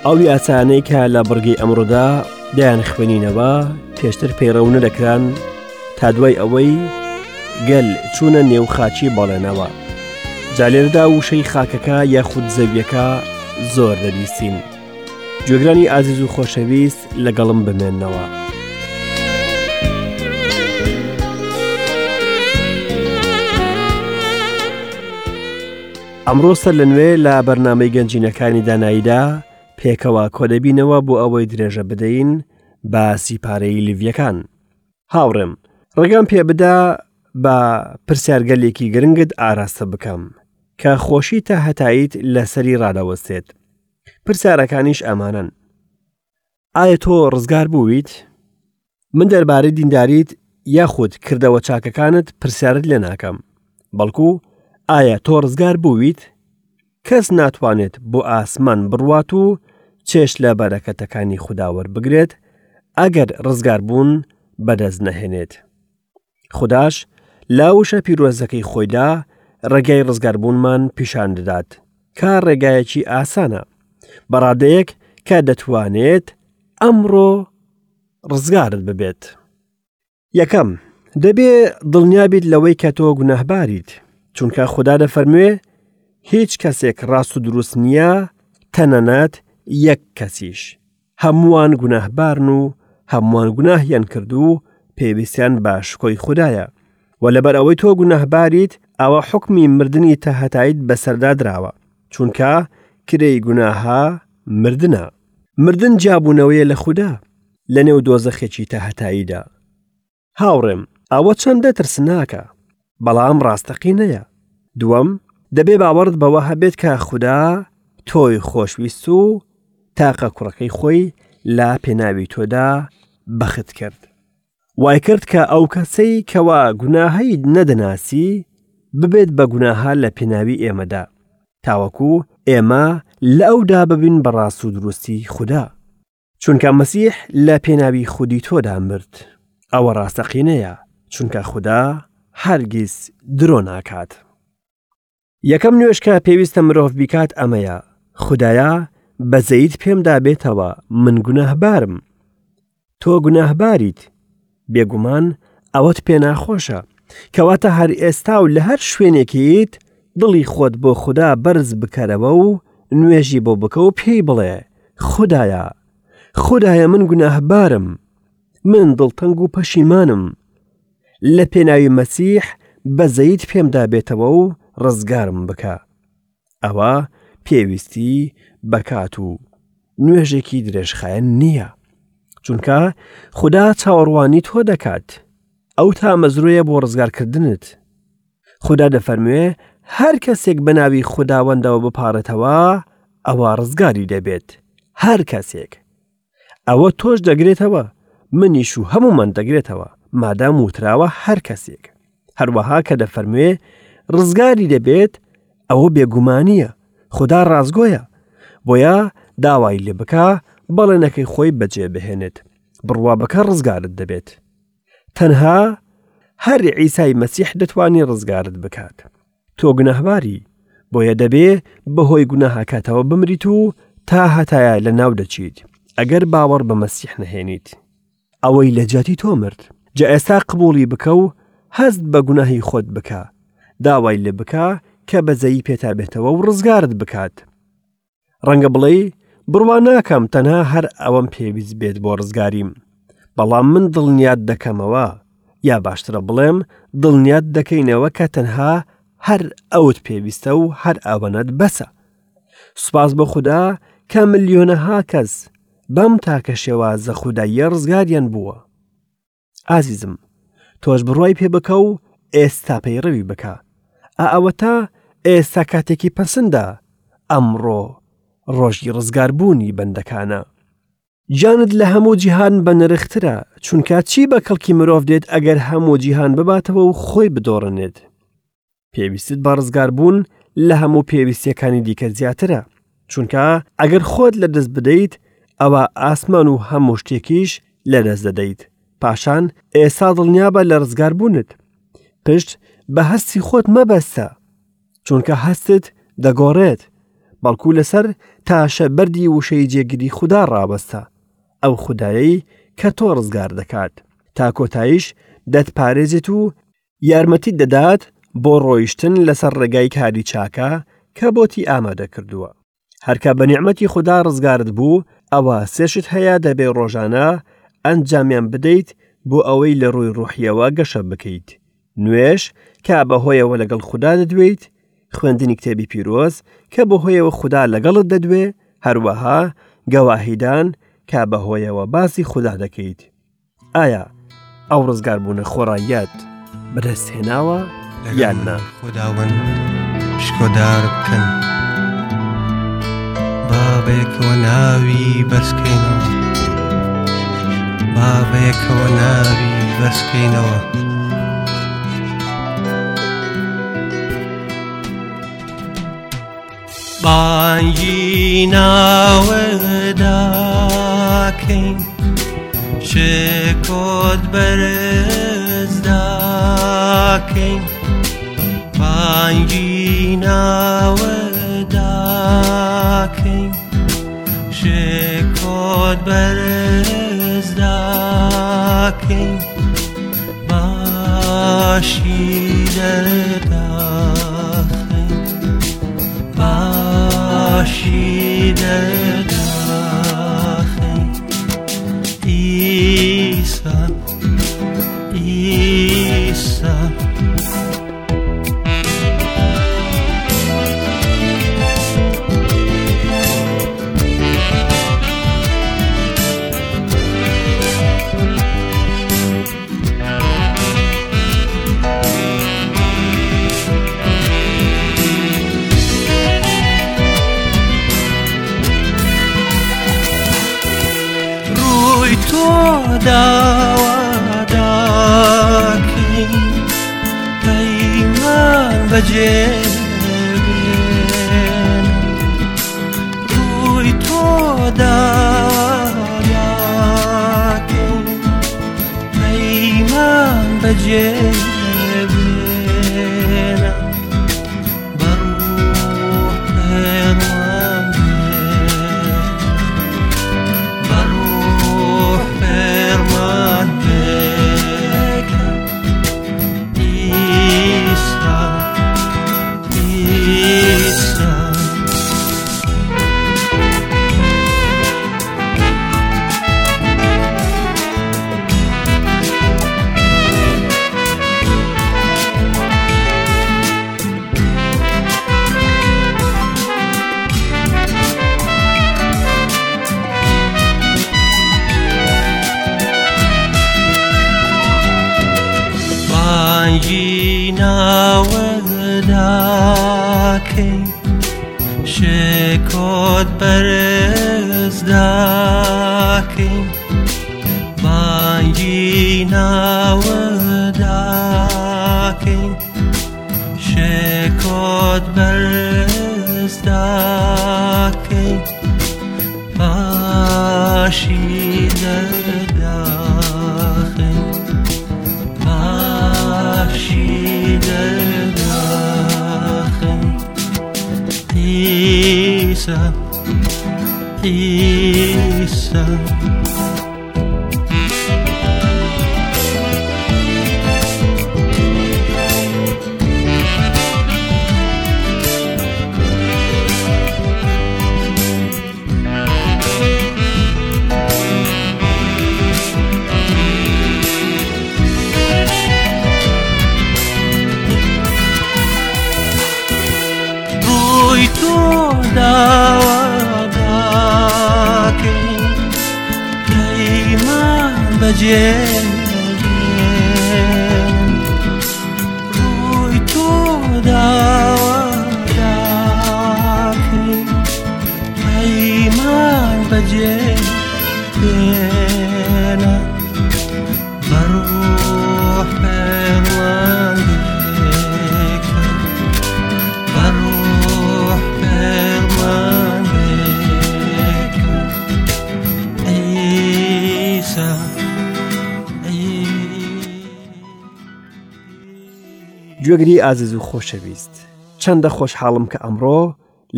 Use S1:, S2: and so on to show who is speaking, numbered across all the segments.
S1: ئەو یاسانەی کە لە بڕگەی ئەمڕۆدا دەیان خوێنینەوە پێشتر پەیڕەو نەدەکران تا دوای ئەوەی گەل چوونە نێو خاچی بەڵێنەوە جا لێرەدا وشەی خاکەکە یاخود زەویەکە زۆر دەبیستین گوێگرانی ئازیز و خۆشەویست لەگەڵم بمێنەوە. ئەمڕۆ سەر لە نوێ لە بەرنامەی گەنجینەکانی داناییدا پێکەوە کۆدەبینەوە بۆ ئەوەی درێژە بدەین بە سیپارەی لیڤیەکان. هاوڕێم، ڕێگام پێ بدە بە پرسیارگەلێکی گرنگت ئاراستە بکەم کە خۆشی تا هەتاییت لەسەری ڕادەوەستێت. پرسیارەکانیش ئەمانەن. ئایا تۆ ڕزگار بوویت؟ من دەربارەی دینداریت یاخود کردەوە چاکەکانت پرسیارت لێ ناکەم، بەڵکو ئایا تۆ ڕزگار بوویت؟ کەس ناتوانێت بۆ ئاسمان بڕوات و چێژ لە بەرەکەتەکانی خودا وەربگرێت ئەگەر ڕزگاربوون بەدەست نەهێنێت. خوداش لە وشە پیرۆزەکەی خۆیدا ڕێگای ڕزگاربوونمان پیشان دەدات کە ڕێگایەکی ئاسانە بە ڕادەیەک کە دەتوانێت ئەمڕۆ ڕزگارت ببێت. یەکەم، دەبێ دڵنیا بیت لەوەی کە تۆ گوناهباریت، چونکە خودا دەفەرموێ هیچ کەسێک ڕاست و دروست نییە تەنانەت یەک کەسیش. هەمووان گوناهبارن و هەمووان گوناهیان کرد و پێویستیان بە شکۆی خودایە. و لەبەر ئەوەی تۆ گوناهباریت ئەوە حوکمی مردنی تاهەتاییت بەسەردا دراوە، چونکە کرێی گوناهە مردنە. مردن جیابوونەوەیە لە خودا لەنێو دۆزەخێکی تاهەتاییدا. هاوڕێم، ئەوە چەندە ترسناکە، بەڵام ڕاستەقینەیە. دووەم، دەبێ باوەڕت بەوە هەبێت کە خودا تۆی خۆشویست و تاقە کوڕەکەی خۆی لە پێناوی تۆدا بەخت کرد. وای کرد کە ئەو کەسەی کەوا گوناهەی نەدەناسی ببێت بە گوناهە لە پێناوی ئێمەدا، تاوەکو ئێمە لە ئەودا ببین بە ڕاست و دروستی خودا. چونکە مەسیح لە پێناوی خودی تۆدا مرد. ئەوە ڕاستەقینەیە، چونکە خودا هەرگیز درۆ ناکات. یەکەم نوێژ کە پێویستە مرۆڤ بیکات ئەمەیە، خودایە بەزەیت پێمدا بێتەوە، من گوناهبارم. تۆ گوناهباریت. بێگومان ئەوەت پێ ناخۆشە. کەواتە هەر ئێستا و لە هەر شوێنێکیت دڵی خۆت بۆ خودا بەرز بکەرەوە و نوێژی بۆ بکە و پێی بڵێ، خودایە، خودایە من گوناهبارم، من دڵتەنگ و پەشیمانم. لە پێناوی مەسیح بەزەیت پێمدا بێتەوە و ڕزگارم بکە. ئەوە پێویستی بە کات و نوێژێکی درێژخایەن نییە. چونکە خودا چاوەڕوانی تۆ دەکات. ئەو تامەزرۆیە بۆ ڕزگارکردنت. خودا دەفەرموێ هەر کەسێک بە ناوی خوداوەندەوە بپاڕێتەوە ئەوە ڕزگاری دەبێت. هەر کەسێک. ئەوە تۆش دەگرێتەوە منیش و هەمومان دەگرێتەوە مادام وتراوە هەر کەسێک هەروەها کە دەفەرموێ ڕزگاری دەبێت ئەوە بێگومانیە خدا ڕازگۆیە بۆیە داوای لێ بکە بەڵێنەکەی خۆی بەجێ بهێنێت بڕوا بکە ڕزگارت دەبێت تەنها هەر عیسای مەسیح دەتوانێت ڕزگارت بکات تۆ گوناهباری، بۆیە دەبێ بەهۆی گوناهەکەتەوە بمریت و تا هەتایە لەناو دەچیت، ئەگەر باوەڕ بە مەسیح نەهێنیت. ئەوەی لە جیاتی تۆ مرد. جا ئێستا قبوڵی بکە و هەست بە گوناهی خۆت بکە، داوای لێ بکە کە بەزەیی پێتا بێتەوە و ڕزگارت بکات. ڕەنگە بڵێی بڕوا ناکەم تەنها هەر ئەوەم پێویست بێت بۆ ڕزگاریم بەڵام من دڵنیات دەکەمەوە یا باشترە بڵێم دڵنیات دەکەینەوە کە تەنها هەر ئەوت پێویستە و هەر ئەوەنەت بەسە سوپاس بۆ خودا کە ملیۆنەها کەس بەم تاکە شێوازە خوداییە ڕزگاریان بووە ئازیزم تۆش بڕوای پێ بکە و ئێستا پەیڕەوی بکە ئا ئەوەتا ئێستا کاتێکی پەسندە ئەمڕۆ ڕۆژی ڕزگاربوونی بەندەکانە گیانت لە هەموو جیهان بە نرخترە چونکە چی بە کەڵکی مرۆڤ دێت ئەگەر هەموو جیهان بباتەوە و خۆی بدۆڕنێت پێویستت بە ڕزگاربوون لە هەموو پێویستیەکانی دیکە زیاترە چونکە ئەگەر خۆت لە دەست بدەیت ئەوە ئاسمان و هەموو شتێکیش لە دەست دەدەیت پاشان ئێستا دڵنیابە لە ڕزگاربوونت پشت بە هەستی خۆت مەبەستە چونکە هەستت دەگۆڕێت. بەڵکو لەسەر تاشە بەردی وشەی جێگری خودا ڕابەستە، ئەو خودایەی کە تۆ ڕزگار دەکات، تا کۆتاییش دەتپارێزێت و یارمەتیت دەدات بۆ ڕۆیشتن لەسەر ڕێگای کاری چاکە کە بۆتی ئامادە کردووە. هەرکە بە نیعمەتی خودا ڕزگارت بوو، ئەوا سێ شت هەیە دەبێ ڕۆژانە ئەنجامیان بدەیت بۆ ئەوەی لە ڕووی ڕوحیەوە گەشە بکەیت. نوێژ کە بەهۆیەوە لەگەڵ خودا دەدوێیت، خوێندنی کتێبی پیرۆز کە بەهۆیەوە خودا لەگەڵت دەدوێ، هەروەها گەواهیدان کە بەهۆیەوە باسی خودا دەکەیت. ئایا ئەو ڕزگاربوونە خۆڕاییەت بەدەست هێناوە یان نا؟
S2: خوداوەند شکۆدار بکەن با بەیەکەوە ناوی بەرزکەینەوە با بەیەکەوە ناوی بەرزکەینەوە. بانگی ناوەداکەین شکۆت بەرز داکەین بانگی ناوەداکەین شکۆت بەرز داکەین باشی دەرداخین باشی دەرداخین ئیسا ئیسا ڕووی تۆ داوا داکەین پەیمان بەجێ بێن ڕووی تۆ داوا داکەین پەیمان بەجێ بێنە بەڕوح فێرمان بێ بەڕوح فێرمان بێکە ئیسا ئیسا بانگی ناوەداکەی شکۆت بەرز داکەین بانگی ناوەداکەین شکۆت بەرز داکەین باشی دەرداخین باشی دەرداخین عیسا عیسا ڕووی تۆ داوا داکەین پەیمان بەجێ بێن ڕووی تۆ داوا داکەین پەیمان بەجێ بێنە بەڕوح فێرمان بکە بەڕوح فێرمان بکە عیسا
S1: گوێگری ئازیز و خۆشەویست چەندە خۆشحاڵم کە ئەمڕۆ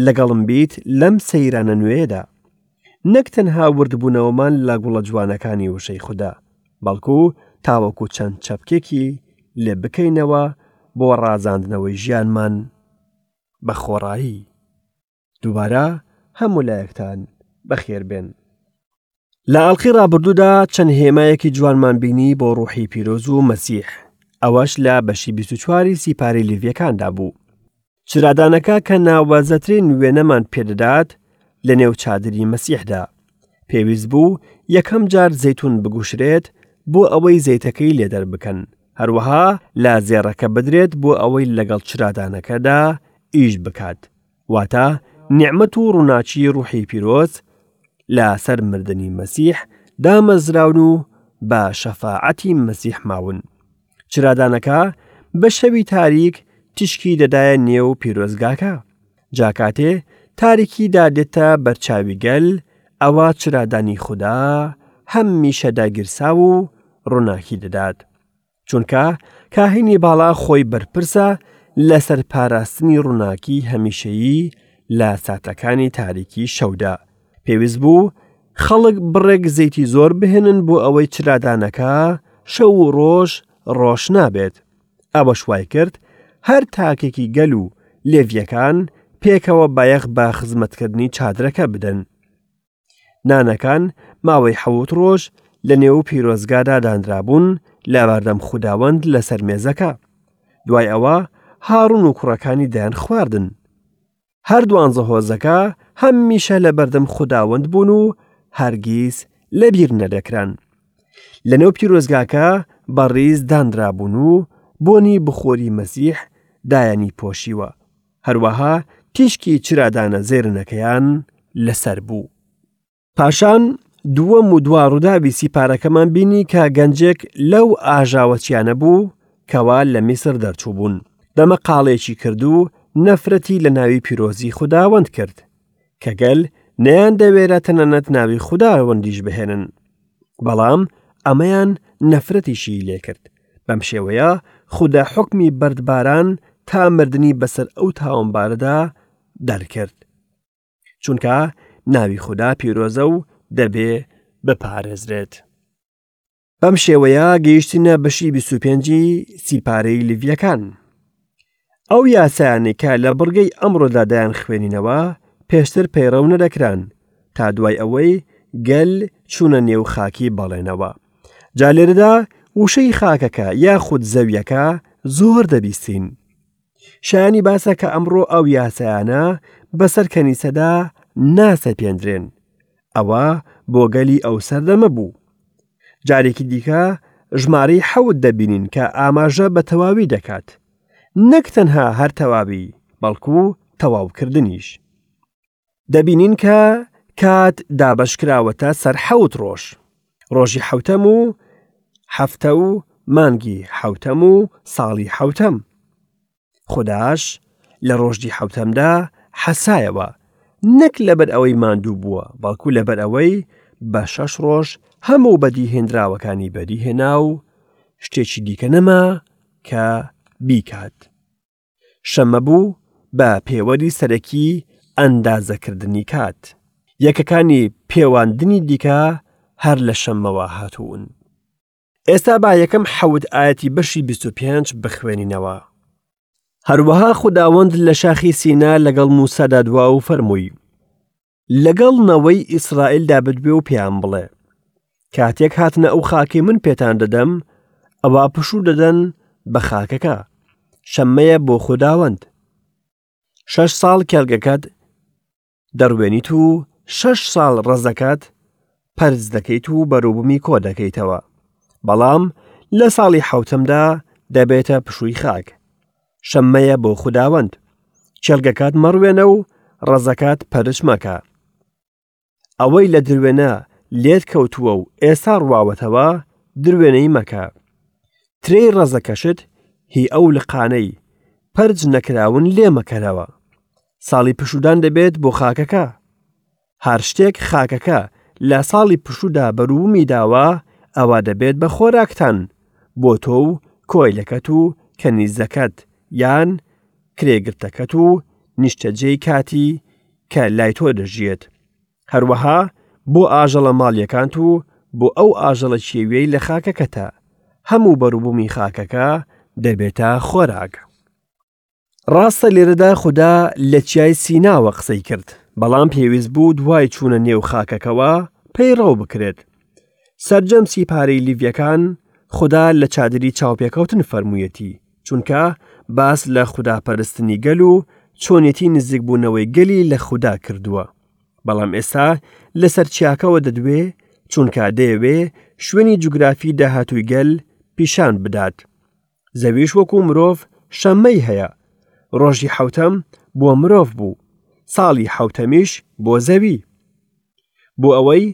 S1: لەگەڵم بیت لەم سەیرانە نوێیەدا. نەک تەنها وردبوونەوەمان لە گوڵە جوانەکانی وشەی خودا، بەڵکو تاوەکو چەند چەپکێکی لێ بکەینەوە بۆ ڕازاندنەوەی ژیانمان بە خۆڕایی. دووبارە هەموو لایەکتان بەخێر بێن. لە ئەڵقەی ڕابردوودا چەند هێمایەکی جوانمان بینی بۆ ڕوحی پیرۆز و مەسیح، ئەوەش لە بەشی 24 سیپارەی لیڤیەکاندا بوو. چرادانەکە کە ناوازەترین وێنەمان پێدەدات لە نێو چادری مەسیحدا. پێویست بوو یەکەم جار زەیتون بگوشرێت بۆ ئەوەی زەیتەکەی لێ دەربکەن، هەروەها لە زێڕەکە بدرێت بۆ ئەوەی لەگەڵ چرادانەکەدا ئیش بکات. واتە نیعمەت و ڕووناکی ڕوحی پیرۆز لە سەر مردنی مەسیح دامەزراون و بە شەفاعەتی مەسیح ماون. چرادانەکە بە شەوی تاریک تیشکی دەدایە نێو پیرۆزگاکە. جا کاتێ تاریکی دادێتە بەرچاوی گەل، ئەوا چرادانی خودا هەمیشە داگیرساو و ڕووناکی دەدات. چونکە کاهینی باڵا خۆی بەرپرسە لەسەر پاراستنی ڕووناکی هەمیشەیی لە ساتەکانی تاریکی شەودا. پێویست بوو خەڵک بڕێک زەیتی زۆر بهێنن بۆ ئەوەی چرادانەکە شەو و ڕۆژ ڕۆشنا بێت. ئەوەش وای کرد هەر تاکێکی گەل و لێڤییەکان پێکەوە بایەخ بە خزمەتکردنی چادرەکە بدەن. نانەکان ماوەی حەوت ڕۆژ لە نێو پیرۆزگادا دانرابوون لە بەردەم خوداوەند لەسەر مێزەکە. دوای ئەوە هاڕون و کوڕەکانی دەیان خواردن. هەر دوانزە هۆزەکە هەمیشە لە بەردەم خوداوەند بوون و هەرگیز لەبیر نەدەکران. لە نێو پیرۆزگاکە بە ڕیز دانرابوون و بۆنی بخۆری مەسیح دایانی پۆشیوە. هەروەها تیشکی چرادانە زێرنەکەیان لەسەر بوو. پاشان دووەم و دوا ڕووداوی سیپارەکەمان بینی کە گەنجێک لەو ئاژاوەچیانە بوو کەوا لە میسر دەرچوو بوون. دەمە قاڵێکی کرد و نەفرەتی لە ناوی پیرۆزی خوداوەند کرد، کە گەل نەیان دەوێرا تەنانەت ناوی خوداوەندیش بهێنن. بەڵام ئەمەیان نەفرەتیشی لێکرد. بەم شێوەیە خودا حوکمی بەردباران تا مردنی بەسەر ئەو تاوانبارەدا دەرکرد. چونکە ناوی خودا پیرۆزە و دەبێ بپارێزرێت. بەم شێوەیە گەیشتینە بەشی 25 سیپارەی لیڤیەکان. ئەو یاسایانەی کە لە بڕگەی ئەمڕۆدا دەیان خوێنینەوە پێشتر پەیڕەو نەدەکران تا دوای ئەوەی گەل چوونە نێو خاکی بەڵێنەوە. جا لێرەدا وشەی خاکەکە یاخود زەویەکە زۆر دەبیستین. شایانی باسە کە ئەمڕۆ ئەو یاسایانە بەسەر کەنیسەدا ناسەپێندرێن. ئەوە بۆ گەلی ئەو سەردەمە بوو. جارێکی دیکە ژمارەی حەوت دەبینین کە ئاماژە بە تەواوی دەکات. نەک تەنها هەر تەواوی، بەڵکو تەواوکردنیش. دەبینین کە کات دابەشکراوەتە سەر حەوت ڕۆژ. ڕۆژی حەوتەم و هەفتە و مانگی حەوتەم و ساڵی حەوتەم. خوداش لە ڕۆژی حەوتەمدا حەسایەوە، نەک لەبەر ئەوەی ماندوو بووە، بەڵکو لەبەر ئەوەی بە شەش ڕۆژ هەموو بەدیهێنراوەکانی بەدیهێنا و شتێکی دیکە نەما کە بیکات. شەممە بوو بە پێوەری سەرەکی ئەندازەکردنی کات. یەکەکانی پێواندنی دیکە هەر لە شەممەوە هاتوون. ئێستا با یەکەم حەوت ئایەتی بەشی 25 بخوێنینەوە. هەروەها خوداوەند لە شاخی سینا لەگەڵ موسادا دوا و فەرمووی، لەگەڵ نەوەی ئیسرائیلدا بدوێ و پێیان بڵێ، کاتێک هاتنە ئەو خاکەی من پێتان دەدەم، ئەوا پشوو دەدەن بە خاکەکە، شەممەیە بۆ خوداوەند. شەش ساڵ کێڵگەکەت دەڕوێنیت و شەش ساڵ ڕەزەکەت پەرز دەکەیت و بەروبوومی کۆ دەکەیتەوە. بەڵام لە ساڵی حەوتەمدا دەبێتە پشووی خاک. شەممەیە بۆ خوداوەند. کێڵگەکەت مەڕوێنە و ڕەزەکەت پەرچ مەکە. ئەوەی لە دروێنە لێت کەوتووە و ئێستا ڕواوەتەوە، دروێنەی مەکە. ترێی ڕەزەکەشت هی ئەو لقانەی پەرچ نەکراون لێ مەکەرەوە. ساڵی پشوودان دەبێت بۆ خاکەکە. هەر شتێک خاکەکە لە ساڵی پشوودا بەروبوومی داوە، ئەوا دەبێت بە خۆراکتان، بۆ تۆ و کۆیلەکەت و کەنیزەکەت یان کرێگرتەکەت و نیشتەجێی کاتی. کە لای تۆ دەژیێت. هەروەها بۆ ئاژەڵە ماڵیەکانت و بۆ ئەو ئاژەڵە کێویەی لە خاکەکەتە، هەموو بەروبوومی خاکەکە دەبێتە خۆراک. ڕاستە لێرەدا خودا لە چیای سیناوە قسەی کرد، بەڵام پێویست بوو دوای چوونە نێو خاکەکەوە پەیڕەو بکرێت. سەرجەم سیپارەی لیڤیەکان خودا لە چادری چاوپێکەوتن فەرموویەتی، چونکە باس لە خوداپەرستنی گەل و چۆنێتی نزیکبوونەوەی گەلی لە خودا کردووە. بەڵام ئێستا لەسەر چیاکەوە دەدوێ چونکە دەیەوێ شوێنی جوگرافی داهاتووی گەل پیشان بدات. زەویش وەکو مرۆڤ شەممەی هەیە. ڕۆژی حەوتەم بۆ مرۆڤ بوو، ساڵی حەوتەمیش بۆ زەوی. بۆ ئەوەی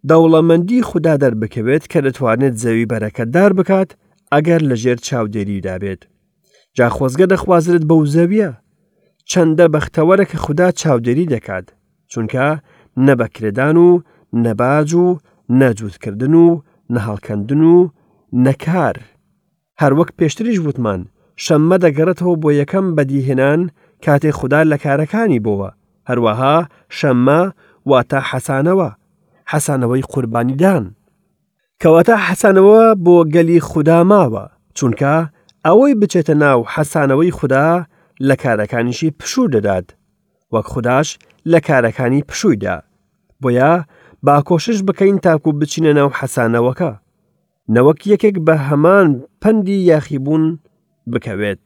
S1: دەوڵەمەندی خودا دەربکەوێت کە دەتوانێت زەوی بەرەکەتدار بکات ئەگەر لەژێر چاودێریدا بێت. جا خۆزگە دەخوازرێت بەو زەویە. چەندە بەختەوەرە کە خودا چاودێری دەکات، چونکە نە بە کرێدان و نە باج و نە جووتکردن و نە هەڵکەندن و نە کار. هەروەک پێشتریش وتمان، شەممە دەگەڕێتەوە بۆ یەکەم بەدیهێنان کاتێ خودا لە کارەکانی بۆوە، هەروەها شەممە واتە حەسانەوە، حەسانەوەی قوربانیدان. کەواتە حەسانەوە بۆ گەلی خودا ماوە، چونکە ئەوەی بچێتە ناو حەسانەوەی خودا لە کارەکانیشی پشوو دەدات، وەک خوداش لە کارەکانی پشووی دا. بۆیە با کۆشش بکەین تاکو بچینە ناو حەسانەوەکە. نەوەک یەکێک بە هەمان پەندی یاخیبوون بکەوێت.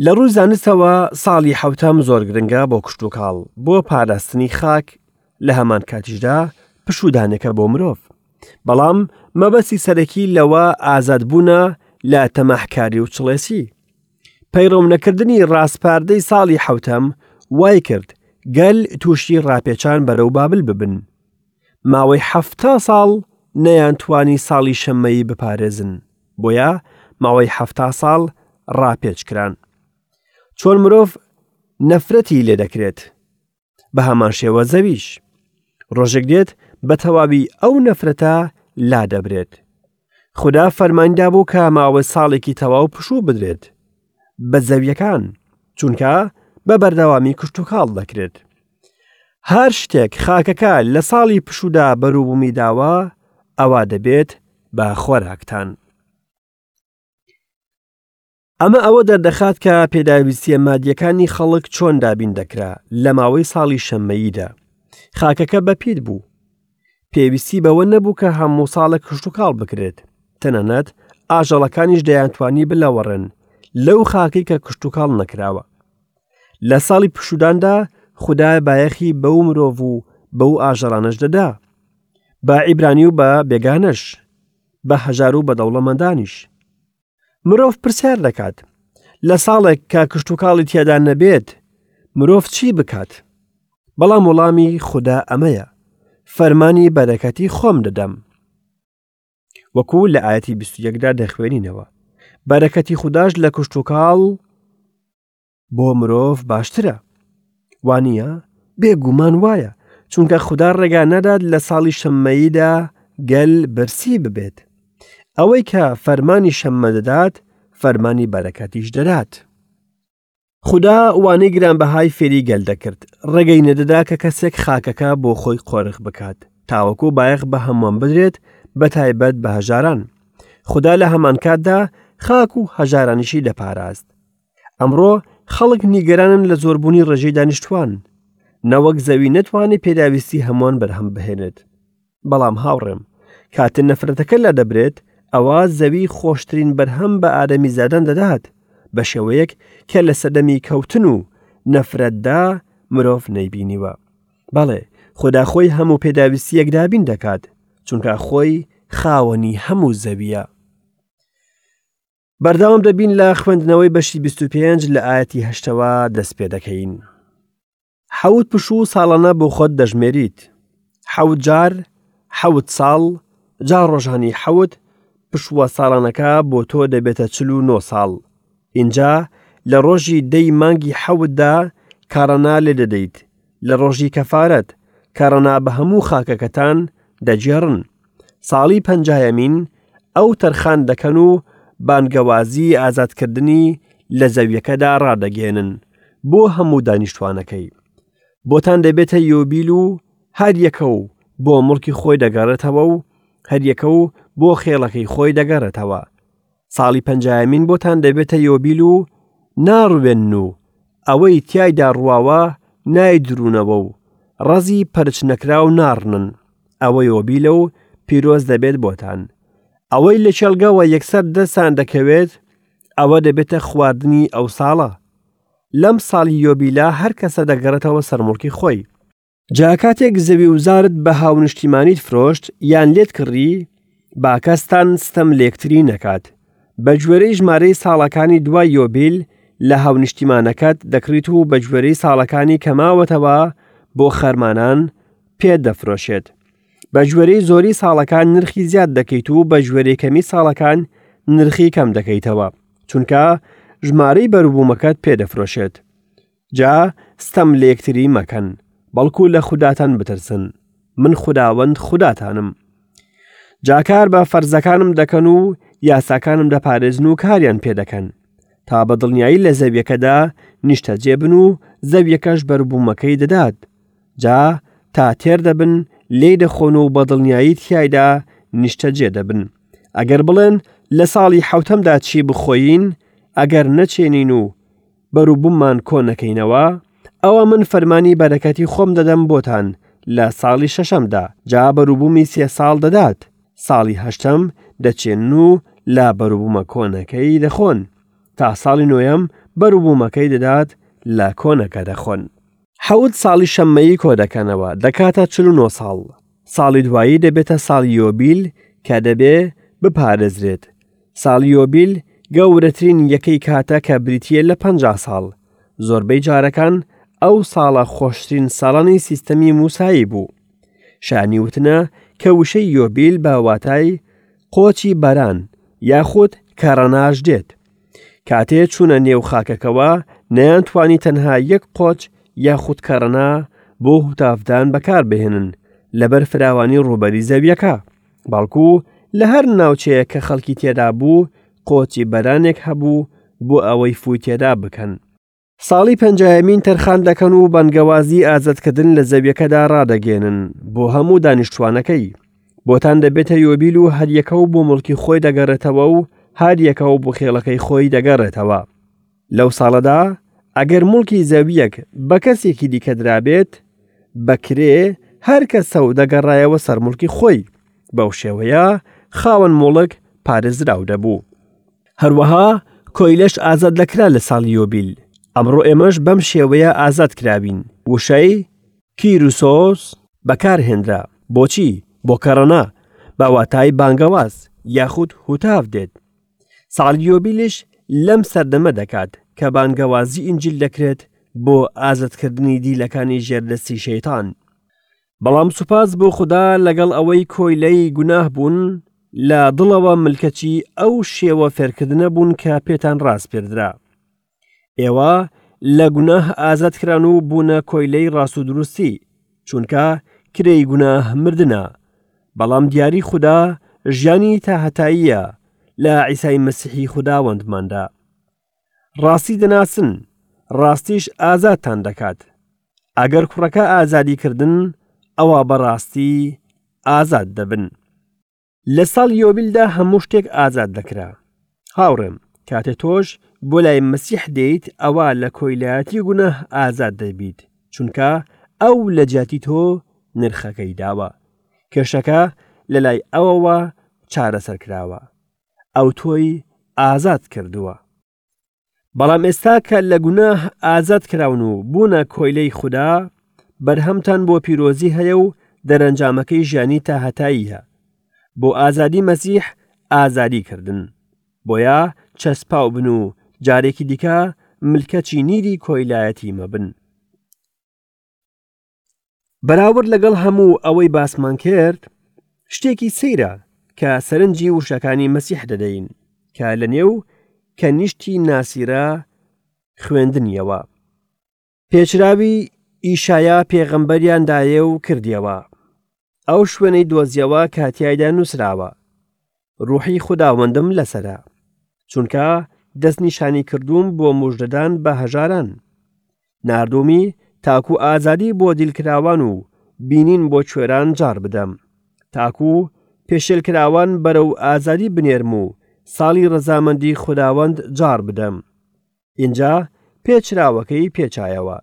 S1: لە ڕووی زانستەوە ساڵی حەوتەم زۆر گرنگە بۆ کشتوکاڵ، بۆ پاراستنی خاک، لە هەمان کاتیشدا پشوودانێکە بۆ مرۆڤ. بەڵام مەبەستی سەرەکی لەوە ئازادبوونە لە تەماحکاری و چڵێسی. پەیڕەونەکردنی ڕاسپاردەی ساڵی حەوتەم وای کرد گەل تووشی ڕاپێچان بەرەو بابل ببن. ماوەی حەفتا ساڵ نەیانتوانی ساڵی شەممەیی بپارێزن، بۆیە ماوەی حەفتا ساڵ ڕاپێچ کران. چۆن مرۆڤ نەفرەتی لێ دەکرێت؟ بە هەمان شێوە زەویش. ڕۆژێک دێت بە تەواوی ئەو نەفرەتە لا دەبرێت. خودا فەرمانی دابوو کە ماوەی ساڵێکی تەواو پشوو بدرێت بە زەویەکان چونکە بە بەردەوامی کشتوکاڵ دەکرێت. هەر شتێک خاکەکە لە ساڵی پشوودا بەروبوومی داوە ئەوا دەبێت بە خۆراکتان. ئەمە ئەوە دەردەخات کە پێداویستییە مادییەکانی خەڵک چۆن دابین دەکرا لە ماوەی ساڵی شەممەییدا. خاکەکە بەپیت بوو. پێویستی بەوە نەبوو کە هەموو ساڵێک کشتوکاڵ بکرێت. تەنانەت ئاژەڵەکانیش دەیانتوانی بلەوەڕێن لەو خاکەی کە کشتوکاڵ نەکراوە. لە ساڵی پشووداندا خودا بایەخی بەو مرۆڤ و بەو ئاژەڵانەش دەدا. بە عیبرانی و بە بێگانەش، بە هەژار و بە دەوڵەمەندانیش. مرۆڤ پرسیار دەکات لە ساڵێک کە کشتوکاڵی تێدا نەبێت مرۆڤ چی بکات؟ بەڵام وەڵامی خودا ئەمەیە فەرمانی بەرەکەتی خۆم دەدەم. وەکو لە ئاەتی 21دا دەخوێنینەوە بەرەکەتی خودداش لە کشتوکاڵ بۆ مرۆڤ باشترە وانە بێگومان وایە چونکە خودا ڕێگا نادات لە ساڵی شەممەییدا گەل برسی ببێت ئەوەی کە فەرمانی شەممە دەدات فەرمانی بەرەکەتیش دەدات خودا وانەی گرانبەهای فێری گەل دەکرد ڕێگەی نەدەدا کە کەسێک خاکەکە بۆ خۆی قۆرخ بکات تاوەکو بایەخ بە هەمووان بدرێت بە تایبەت بە هەژاران خودا لە هەمانکاتدا خاک و هەژارانیشی دەپاراست ئەمڕۆ خەڵک نیگەرانن لە زۆربوونی ڕێژەی دانیشتوان، نەوەک زەوی نەتوانێت پێداویستی هەمووان بەرهەم بهێنێت. بەڵام هاوڕێم، کاتێ نەفرەتەکە لادەبرێت، ئەوا زەوی خۆشترین بەرهەم بە ئادەمیزادان دەدات، بە شێوەیەک کە لە سەردەمی کەوتن و نەفرەتدا مرۆڤ نەیبینیوە. بەڵێ، خودا خۆی هەموو پێداویستییەک دابین دەکات، چونکە خۆی خاوەنی هەموو زەوییە. بەردەوام دەبین لە خوێندنەوەی بەشی 25 لە ئاەتی هەشتەوە دەست پێ دەکەین. حەوت پشوو ساڵانە بۆ خۆت دەژمێریت. حەوت جار، حەوت ساڵ، جا ڕۆژانی حەوت پشووە ساڵانەکە بۆ تۆ دەبێتە 49 ساڵ. ئینجا لە ڕۆژی دەی مانگی حەوتدا کاڕەنا لێ دەدەیت، لە ڕۆژی کەفارەت، کەڕەنا بە هەموو خاکەکەتان دەگێڕن. ساڵی پەنجایەمین ئەو تەرخان دەکەن و بانگەوازی ئازادکردنی لە زەویەکەدا ڕادەگەیەنن بۆ هەموو دانیشتوانەکەی. بۆتان دەبێتە یۆبیل و هەر یەکە و بۆ مڵکی خۆی دەگەڕێتەوە و هەریەکە و بۆ خێڵەکەی خۆی دەگەڕێتەوە. ساڵی پەنجایەمین بۆتان دەبێتە یۆبیل و ناڕوێنن و ئەوەی تیایدا ڕواوە نایدروونەوە و ڕەزی پەرچ نەکراو ناڕنن، ئەوە یۆبیلە و پیرۆز دەبێت بۆتان. ئەوەی لە کێڵگەوە یەکسەر دەستان دەکەوێت، ئەوە دەبێتە خواردنی ئەو ساڵە. لەم ساڵی یۆبیلە هەر کەسە دەگەڕێتەوە سەر موڵکی خۆی. جا کاتێک زەوی و زارت بە هاونیشتیمانیت فرۆشت یان لێت کڕی، با کەستان ستەم لێکتری نەکات. بە گوێرەی ژمارەی ساڵەکانی دوای یۆبیل لە هاونیشتیمانەکەت دەکڕیت و بە گوێرەی ساڵەکانی کە ماوەتەوە بۆ خەرمانان پێت دەفرۆشێت. بە گوێرەی زۆری ساڵەکان نرخی زیاد دەکەیت و بە گوێرەی کەمی ساڵەکان نرخی کەم دەکەیتەوە، چونکە ژمارەی بەروبوومەکەت پێ دەفرۆشێت. جا ستەم لە یەکتری مەکەن، بەڵکو لە خوداتان بترسن، من خوداوەند خوداتانم. جا کار بە فەرزەکانم دەکەن و یاساکانم دەپارێزن و کاریان پێ دەکەن، تا بە دڵنیایی لە زەویەکەدا نیشتەجێ بن و زەویەکەش بەروبوومەکەی دەدات، جا تا تێر دەبن لێی دەخۆن و بە دڵنیایی تیایدا نیشتەجێ دەبن. ئەگەر بڵێن لە ساڵی حەوتەمدا چی بخۆین، ئەگەر نەچێنین و بەروبووممان کۆ نەکەینەوە، ئەوا من فەرمانی بەرەکەتی خۆم دەدەم بۆتان لە ساڵی شەشەمدا، جا بەروبوومی سێ ساڵ دەدات، ساڵی هەشتەم دەچێنن و لە بەروبوومە کۆنەکەی دەخۆن، تا ساڵی نۆیەم بەروبوومەکەی دەدات لە کۆنەکە دەخۆن. حەوت ساڵی شەممەیی کۆ دەکەنەوە، دەکاتە 49 ساڵ. ساڵی دوایی دەبێتە ساڵی یۆبیل کە دەبێ بپارێزرێت. ساڵی یۆبیل گەورەترین یەکەی کاتە کە بریتییە لە 50 ساڵ. زۆربەی جارەکان ئەو ساڵە خۆشترین ساڵانی سیستەمی موسایی بوو. شایانی وتنە کە وشەی یۆبیل بە واتای قۆچی بەران یاخود کەڕەناش دێت. کاتێ چوونە نێو خاکەکەوە نەیانتوانی تەنها یەک قۆچ یاخود کەڕەنا بۆ هوتافدان بەکاربهێنن لەبەر فراوانی ڕووبەری زەویەکە، بەڵکو لە هەر ناوچەیەک کە خەڵکی تێدا بوو قۆچی بەرانێک هەبوو بۆ ئەوەی فووی تێدا بکەن. ساڵی پەنجایەمین تەرخان دەکەن و بانگەوازی ئازادکردن لە زەویەکەدا ڕادەگەێنن بۆ هەموو دانیشتوانەکەی. بۆتان دەبێتە یۆبیل و هەریەکە و بۆ مڵکی خۆی دەگەڕێتەوە و هەریەکە و بۆ خێڵەکەی خۆی دەگەڕێتەوە. لەو ساڵەدا ئەگەر مڵکی زەویەک بە کەسێکی دیکە درابێت بە کرێ، هەر کەسە و دەگەڕایەوە سەر مڵکی خۆی. بەو شێوەیە خاوەن موڵک پارێزراو دەبوو. هەروەها کۆیلەش ئازاد دەکرا لە ساڵی یۆبیل. ئەمڕۆ ئێمەش بەم شێوەیە ئازاد کراوین. وشەی، کیروسۆس، بەکارهێنرا. بۆچی؟ بۆ کەڕەنا، بە واتای بانگەواز یاخود هوتاف دێت. ساڵی یۆبیلیش لەم سەردەمە دەکات کە بانگەوازی ئینجیل دەکرێت بۆ ئازادکردنی دیلەکانی ژێر دەستی شەیتان. بەڵام سوپاس بۆ خودا لەگەڵ ئەوەی کۆیلەی گوناه بوون، لە دڵەوە ملکەچی ئەو شێوە فێرکردنە بوون کە پێتان ڕاسپێردرا. ئێوە لە گوناه ئازاد کران و بوونە کۆیلەی ڕاست و دروستی، چونکە کرێی گوناه مردنە، بەڵام دیاری خودا ژیانی تاهەتاییە لە عیسای مەسیحی خوداوەندماندا. ڕاستی دەناسن، ڕاستیش ئازادتان دەکات. ئەگەر کوڕەکە ئازادی کردن، ئەوا بەڕاستی ئازاد دەبن. لە ساڵی یۆبیلدا هەموو شتێک ئازاد دەکرا. هاوڕێم، کاتێ تۆش بۆ لای مەسیح دێیت، ئەوا لە کۆیلایەتی گوناه ئازاد دەبیت، چونکە ئەو لە جیاتی تۆ نرخەکەی داوە. کێشەکە لە لای ئەوەوە چارەسەر کراوە. ئەو تۆی ئازاد کردووە. بەڵام ئێستا کە لە گوناه ئازاد کراون و بوونە کۆیلەی خودا، بەرهەمتان بۆ پیرۆزی هەیە و دەرەنجامەکەی ژیانی تاهەتاییە. بۆ ئازادی مەسیح ئازادی کردن. بۆیە چەسپاو بن و جارێکی دیکە ملکەچی نیری کۆیلایەتی مەبن. بەراورد لەگەڵ هەموو ئەوەی باسمان کرد، شتێکی سەیرە کە سەرنجی وشەکانی مەسیح دەدەین کە لە نێو کەنیشتی ناسیرە خوێندنیەوە. پێچراوی ئیشایا پێغەمبەریان دایێ و کردیەوە. ئەو شوێنەی دۆزیەوە کە تیایدا نووسراوە، ڕوحی خوداوەندم لەسەرە، چونکە دەستنیشانی کردووم بۆ موژدەدان بە هەژاران. ناردوومی تاکو ئازادی بۆ دیلکراوان و بینین بۆ کوێران جاڕ بدەم، تاکو پێشێلکراوان بەرەو ئازادی بنێرم و ساڵی ڕەزامەندی خوداوەند جاڕ بدەم. ئینجا پێچراوەکەی پێچایەوە،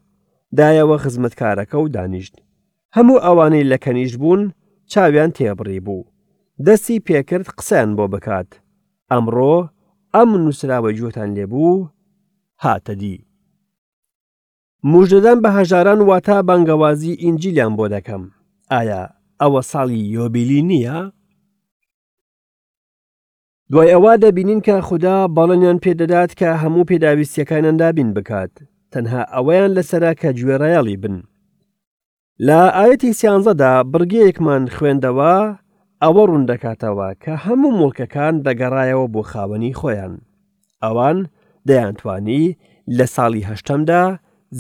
S1: دایەوە خزمەتکارەکە و دانیشت. هەموو ئەوانەی لە کەنیشت بوون چاویان تێبڕی بوو. دەستی پێکرد قسەیان بۆ بکات. ئەمڕۆ ئەم نووسراوەی گوێتان لێ بوو هاتە دی. موژدەدان بە هەژاران واتە بانگەوازی ئینجیلیان بۆ دەکەم. ئایا ئەوە ساڵی یۆبیلی نییە؟ دوای ئەوە دەبینین کە خودا بەڵێنیان پێدەدات کە هەموو پێداویستیەکانیان دابین بکات تەنها ئەوەیان لەسەرە کە گوێڕایەڵی بن لە ئاەتی سیانزەدا بڕگەیەکمان خوێندەوە ئەوە ڕوون دەکاتەوە کە هەموو موڵکەکان دەگەڕایەوە بۆ خاوەنی خۆیان ئەوان دەیانتوانی لە ساڵی هەشتەمدا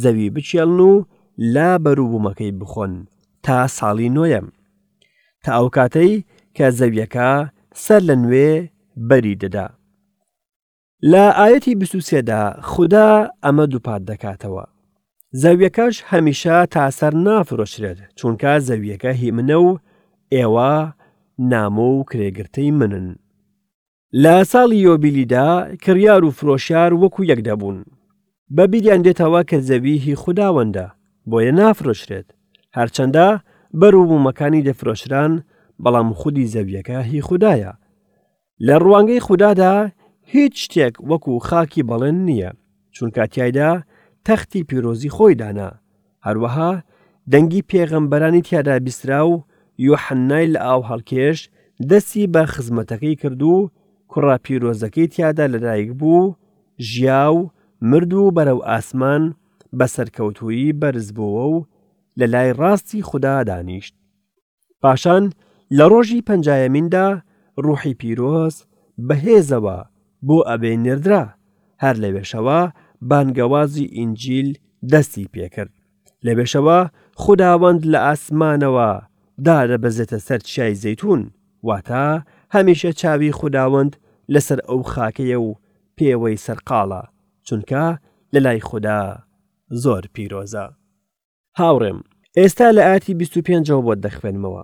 S1: زەوی بچێڵن و لە بەروبوومەکەی بخۆن تا ساڵی نۆیەم تا ئەو کاتەی کە زەویەکە سەر لە نوێ بەری دەدا. لە ئاەتی 23دا خودا ئەمە دووپات دەکاتەوە. زەویەکەش هەمیشە تا سەر نافرۆشرێت چونکە زەویەکە هی منە و ئێوە نامۆ و کرێگرتەی منن. لە ساڵی یۆبیلیدا کڕیار و فرۆشیار وەکو یەک دەبوون. بە بیریان دێتەوە کە زەوی هی خوداوەندە، بۆیە نافرۆشرێت. هەرچەندە بەروبوومەکانی دەفرۆشران، بەڵام خودی زەویەکە هی خودایە. لە ڕوانگەی خودادا هیچ شتێک وەکو خاکی بەڵێن نییە، چونکە تیایدا تەختی پیرۆزی خۆی دانا. هەروەها دەنگی پێغەمبەرانی تیادا بیسترا و یۆحەننای لە ئاو هەڵکێش دەستی بە خزمەتەکەی کرد و کوڕە پیرۆزەکەی تیادا لەدایک بوو، ژیا و مرد و بەرەو ئاسمان بە سەرکەوتوویی بەرزبۆوە و لە لای ڕاستی خودا دانیشت. پاشان لە ڕۆژی پەنجایەمیندا ڕوحی پیرۆز بە هێزەوە بۆ ئەوێ نێردرا، هەر لەوێشەوە بانگەوازی ئینجیل دەستی پێکرد. لەوێشەوە خوداوەند لە ئاسمانەوە دادەبەزێتە سەر چیای زەیتون، واتە هەمیشە چاوی خوداوەند لەسەر ئەو خاکەیە و پێوەی سەرقاڵە، چونکە لەلای خودا زۆر پیرۆزە. هاوڕێم ئێستا لە ئاتی 25ەوە بۆت دەخوێنمەوە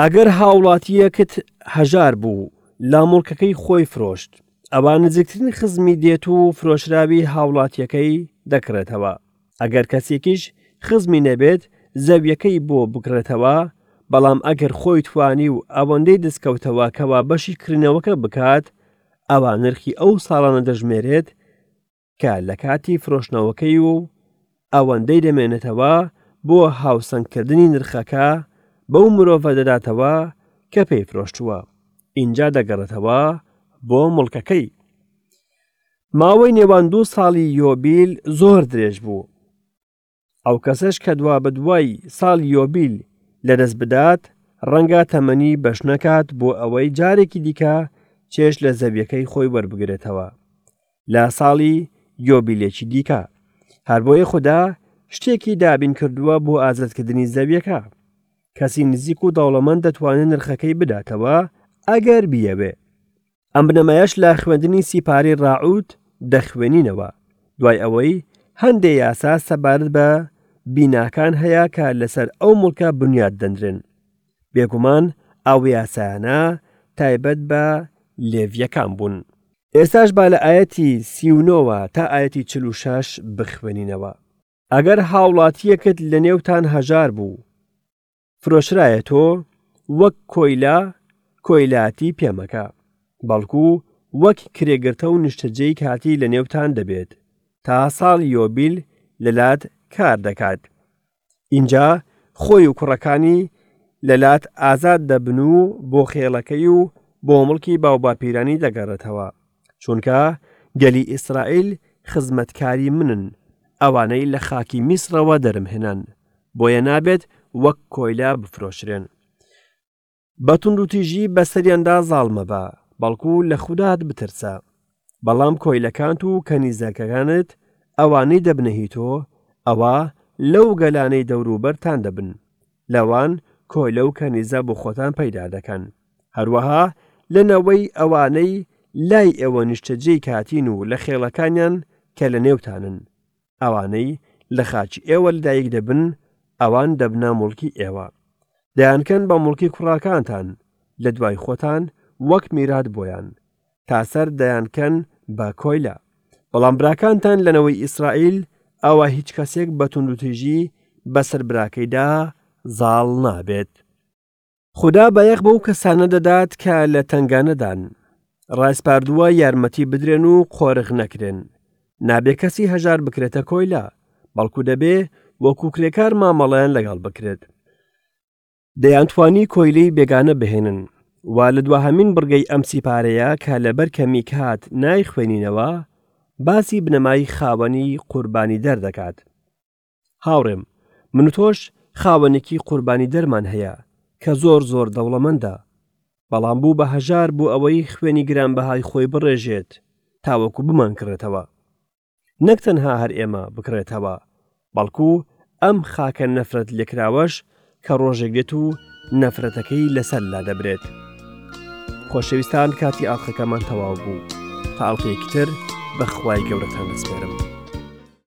S1: ئەگەر هاوڵاتیەکت هەژار بوو لا موڵکەکەی خۆی فرۆشت ئەوا نزیکترین خزمی دێت و فرۆشراوی هاوڵاتیەکەی دەکڕێتەوە ئەگەر کەسێکیش خزمی نەبێت زەویەکەی بۆ بکڕێتەوە بەڵام ئەگەر خۆی توانی و ئەوەندەی دەستکەوتەوە کەوا بەشی کڕینەوەکە بکات ئەوا نرخی ئەو ساڵانە دەژمێرێت کە لە کاتی فرۆشتنەوەکەی و ئەوەندەی دەمێنێتەوە بۆ هاوسەنگکردنی نرخەکە بەو مرۆڤە دەداتەوە کە پێی فرۆشتووە ئینجا دەگەڕێتەوە بۆ مڵکەکەی. ماوەی نێوان دوو ساڵی یۆبیل زۆر درێژ بوو. ئەو کەسەش کە دوابەدوای ساڵی یۆبیل لەدەست بدات، ڕەنگە تەمەنی بەش نەکات بۆ ئەوەی جارێکی دیکە چێژ لە زەویەکەی خۆی وەربگرێتەوە لە ساڵی یۆبیلێکی دیکە. هەر بۆیە خودا شتێکی دابین کردووە بۆ ئازادکردنی زەویەکە. کەسی نزیک و دەوڵەمەند دەتوانێت نرخەکەی بداتەوە ئەگەر بیەوێ. ئەم بنەمایەش لە خوێندنی سیپارەی ڕاعوت دەخوێنینەوە، دوای ئەوەی هەندێ یاسا سەبارەت بە بیناکان هەیە کە لەسەر ئەو موڵکە بنیات دەنرێن. بێگومان ئەو یاسایانە تایبەت بە لێڤییەکان بوون. ئێستاش با لە ئایەتی 39ەوە تا ئایەتی 46 بخوێنینەوە. ئەگەر هاوڵاتییەکت لەنێوتان هەژار بوو، فرۆشرایە تۆ وەک کۆیلە کۆیلایەتی پێ مەکە، بەڵکو وەک کرێگرتە و نیشتەجێی کاتی لە نێوتان دەبێت، تا ساڵی یۆبیل لەلات کار دەکات. ئینجا خۆی و کوڕەکانی لەلات ئازاد دەبن و بۆ خێڵەکەی و بۆ مڵکی باوباپیرانی دەگەڕێتەوە، چونکە گەلی ئیسرائیل خزمەتکاری منن، ئەوانەی لە خاکی میسرەوە دەرمهێنان. بۆیە نابێت وەک کۆیلە بفرۆشرێن. بە توندوتیژی بەسەریاندا زاڵ مەبە، بەڵکو لە خودات بترسە. بەڵام کۆیلەکانت و کەنیزەکەکانت، ئەوانەی دەبنە هی تۆ، ئەوا لەو گەلانەی دەوروبەرتان دەبن، لەوان کۆیلە و کەنیزە بۆ خۆتان پەیدا دەکەن. هەروەها لە نەوەی ئەوانەی لای ئێوە نیشتەجێی کاتین و لە خێڵەکانیان کە لەنێوتانن. ئەوانەی لە خاکی ئێوە لەدایک دەبن ئەوان دەبنە موڵکی ئێوە. دەیانکەن بە موڵکی کوڕاکانتان لە دوای خۆتان وەک میرات بۆیان، تا سەر دەیانکەن بە کۆیلە. بەڵام براکانتان لە نەوەی ئیسرائیل ئەوا هیچ کەسێک بە توندوتیژی بەسەر براکەیدا زاڵ نابێت. خودا بایەخ بەو کەسانە دەدات کە لە تەنگانەدان، ڕایسپاردووە یارمەتی بدرێن و قۆرخ نەکرێن. نابێ کەسی هەژار بکرێتە کۆیلە، بەڵکو دەبێ وەکو کرێکار مامەڵەیان لەگەڵ بکرێت. دەیانتوانی کۆیلەی بێگانە بهێنن و لە دواهەمین بڕگەی ئەم سیپارەیە کە لەبەر کەمی کات نایخوێنینەوە، باسی بنەمای خاوەنی قوربانیدەر دەکات. هاوڕێم، من و تۆش خاوەنێکی قوربانیدەرمان هەیە کە زۆر زۆر دەوڵەمەندە، بەڵام بوو بە هەژار بۆ ئەوەی خوێنی گرانبەهای خۆی بڕێژێت تاوەکو بمانکڕێتەوە. نەک تەنها هەر ئێمە بکڕێتەوە، بەڵکو ئەم خاکە نەفرەت لێکراوەش کە ڕۆژێک دێت و نەفرەتەکەی لەسەر لادەبرێت. خۆشەویستان کاتی ئاڵقەکەمان تەواو بوو تا ئەڵقەیەکی تر بە خوای گەورەتان دەسپێرم.